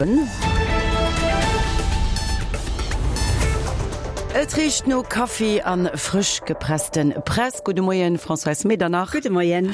Et richt no Kaffi an frësch gepressten Press. Gudde Moien Françoise Medernach. Gudde Moien.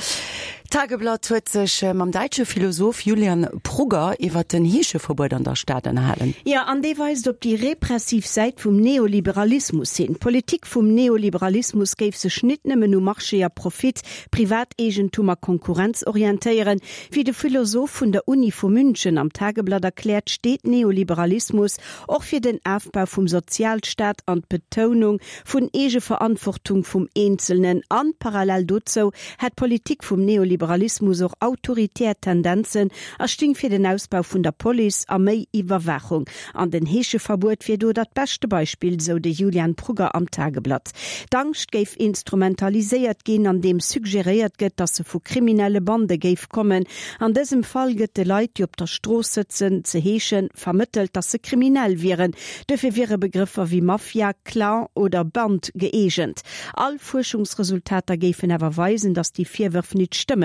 D'Tageblatt huet sech mam däitsche Philosoph Julian Prugger iwwer den Heescheverbuet an der Stad ënnerhalen. Jo, an dee weist op déi repressiv Säit vum Neoliberalismus hin. D'Politik vum Neoliberalismus géif sech nit nëmmen u Marché a Profit, Privateegentum a Konkurrenz orientéieren, Wéi de Philosoph vun der Uni vu München am Tageblatt erkläert, steet Neoliberalismus och fir den Afbau vum Sozialstaat an d'Betounung vun Eegeverantwortung vum Eenzelnen. An parallel dozou hätt d'Politik vum Neoliberalismus och autoritär Tendenzen a sting fir den Ausbau vun der Police a méi Iwwerwaachung. An den Heescheverbuet wier do dat beschte Beispill, sou de Julian Prugger am Tageblatt. D'Angscht géif instrumentaliséiert ginn, andeem suggeréiert gëtt, datt se vu kriminelle Bande géif kommen. An dësem Fall gëtt de Leit, déi op der Strooss sëtzen, ze heeschen, vermëttelt, datt se kriminell wieren. Duerfir wiere Begrëffer wéi Mafia, Clan oder Band gëeegent. All Fuerschungsresultater géifen awer weisen, datt déi Virwërf nit stëmmen.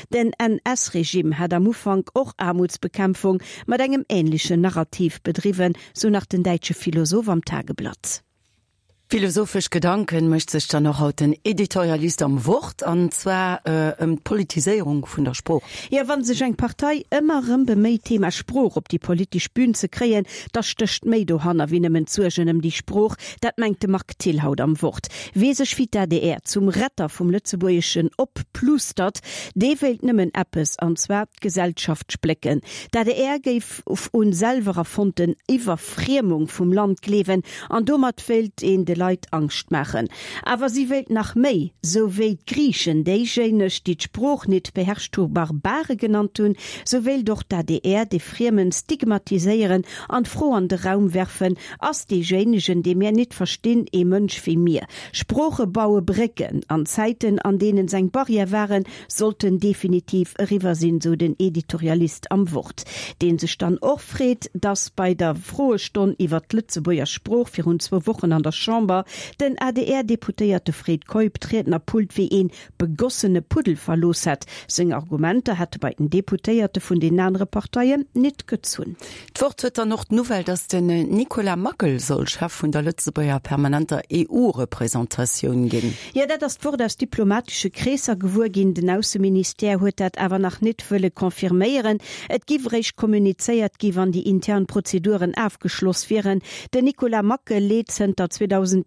Den NS-Regime hat am Ufank och Aarmutsbekämpfung mat engem änlechen Narrativ bedriwwen, sou nach den däitsche Philosoph am Tageblatt. Philosophesch Gedanken mécht sech dann och haut den Editorialist am Wort, an zwar ëm d'Politiséierung vun der Sprooch. Jo, wa sech eng Partei ëmmer erëm beméit, d'Thema Sprooch op déi politesch Bühn ze kréien, da stécht méi dohanner wéi nëmmen d'Suergen ëm déi Sprooch. Dat mengt de Marc Thill haut am Wort. Wee sech wéi d'ADR zum Retter vum Lëtzebuergeschen opplustert, dee wéilt nëmmen eppes, an zwar d'Gesellschaft splécken. D'ADR géif un selwer erfonnten Iwwerfriemung vum Land gleewen an domat wéilt een de Leit Angscht maachen. Awer si wéilt nach méi, sou wéi d'Griichen déijéineg, déi d'Sprooch nit beherrscht hu Barbare genannt hunn, sou wéilt och d'ADR de Friemen stigmatiséieren an d'Fro an de Raum werfen, Ass deejéinegen, dee mär nit verstinn, ee Mënsch wéi mir? Sprooche baue Brécken. An Zäiten, an deenen s'eng Barrière waren, sollten definitiv eriwwer sinn, sou den Editorialist am Wort, dee sech dann och freet, datt bei der Froestonn iwwert d'Lëtzebuerger Sprooch virun zwou Wochen an der Chamber den ADR-Deputéierte Fred Keup d'Riednerpult wéi ee begossene Puddel verlooss hätt. Seng Argumenter hätte bei den Deputéierte vun den anere Parteien nit gezunn. D'Wort huet dann och d'Nouvelle, datt den Nicolas Mackel soll Chef vun der Lëtzebuerger permanenter EU-Representatioun ginn. Jo, dat ass d'Wort aus diplomatesche Kreesser gewuer ginn. Den Ausseministère huet dat awer nach nit wëlle confirméieren. Et giff eréischt kommunizéiert gi wann déi intern Prozeduren afgeschloss wieren. Den Nicolas Mackel leet zënter 2013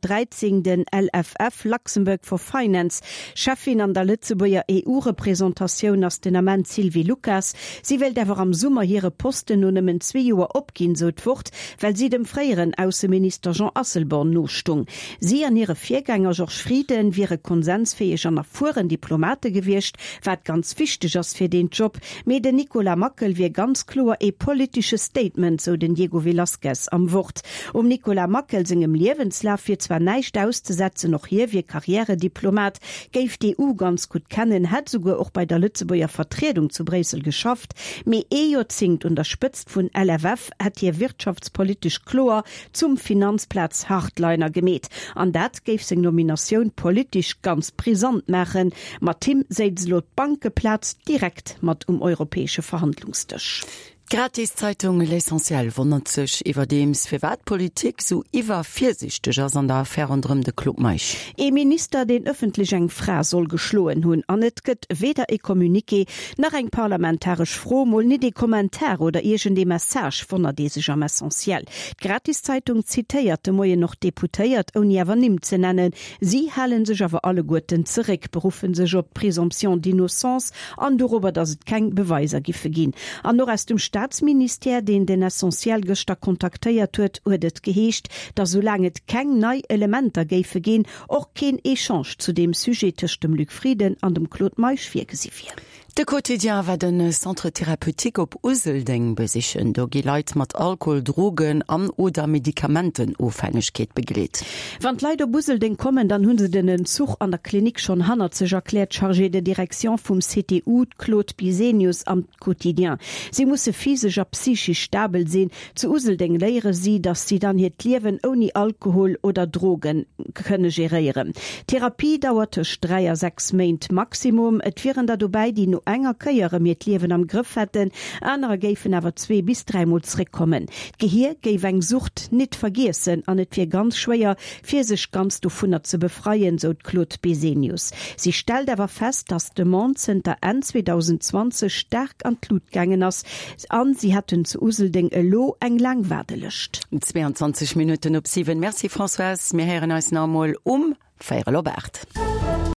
den LFF, Luxembourg for Finance. Cheffin an der Lëtzebuerger EU-Représentatioun ass den Ament d'Sylvie Lucas. Si wéilt awer am Summer hire Posten no nëmmen zwee Joer opginn, sou d'Wort, well si dem fréieren Ausseminister Jean Asselborn nostung. Si an hire Virgänger Georges Frieden wiere konsensfäeg an erfueren Diplomate gewiescht, wat ganz wichteg ass fir deen Job. Mee den Nicolas Mackel wier ganz kloer ee politesche Statement, sou den Diego Velazquez am Wort. Um Nicolas Mackel sengem Liewenslaf wier zwar näischt auszesetzen, och hie wier Karriärediplomat, géif d'EU ganz gutt kennen, hätt esouguer och bei der Lëtzebuerger Vertriedung zu Bréissel geschafft, mee ee Joerzéngt un der Spëtzt vun LFF hätt hie wirtschaftspolitesch kloer zum Finanzplaz-Hardliner gemeet. An dat géif seng Nominatioun politesch ganz brisant maachen. Mat him séiz elo d'Bankeplaz direkt mat um europäesche Verhandlungsdësch. D'Gratiszeitung L'Essentiel wonnert sech iwwerdeems, firwat d'Politik sou iwwervirsiichteg ass an der Affär ronderëm de Claude Meisch. Ee Minister, deen ëffentlech eng Fra soll geschloen hunn, an et gëtt weder e Communiqué, nach eng parlamentaresch Fro, mol nit ee Kommentar oder iergend ee Message, wonnert ee sech am Essentiel. D'Gratiszeitung zitéiert de Moien och Deputéiert, ouni awer Nimm ze nennen. Si hale sech awer alleguerten zeréck, beruffe sech op d'Présomption d'innocence an dorobber, datt et keng Beweiser giffe ginn. An och aus dem Staatsministère, deen den Essentiel gëschter kontaktéiert huet, huet et geheescht, datt soulaang et keng nei Elementer géife ginn, och keen Echange zu deem Sujet tëscht dem Luc Frieden an dem Claude Meisch virgesi wier. De Quotidien war de Centre thérapeutique op Useldeng besichen. Do gi Leit mat Alkohol-, Drogen an oder Medikamentenofhängegkeet begleet. Wann d'Leit op Useldeng kommen, dann hu se den Entzuch an der Klinik schonn hannert sech, erkläert d'Chargée de direction vum CTU, d'Claude Bisenius am Quotidien. Si musse physesch a psychisch stabel sinn. Zu Useldeng léiere si, datt si dann hiert Liewen ouni Alkohol oder Droge kënne geréieren. D'Therapie dauert tëscht 3 a 6 Méint maximum. Et wieren der dobäi, déi no. enger Kéier erëm hiert Liewen am Grëff hätten, anerer géifen awer zwee bis dräimol zréckkommen. D'Gehier géif eng Sucht nit vergiessen an et wier ganz schwéier, fir sech ganz dovunner ze befreien, sou d'Claude Besenius. Si stellt awer fest, datt d'Demande zënter Enn 2020 staark an d'Lut gaangen ass an si hätten zu Useldeng elo eng laang Waardelëscht. 22 Minutten op 7. Merci Françoise, mir héieren eis nach emol um véierel op 8.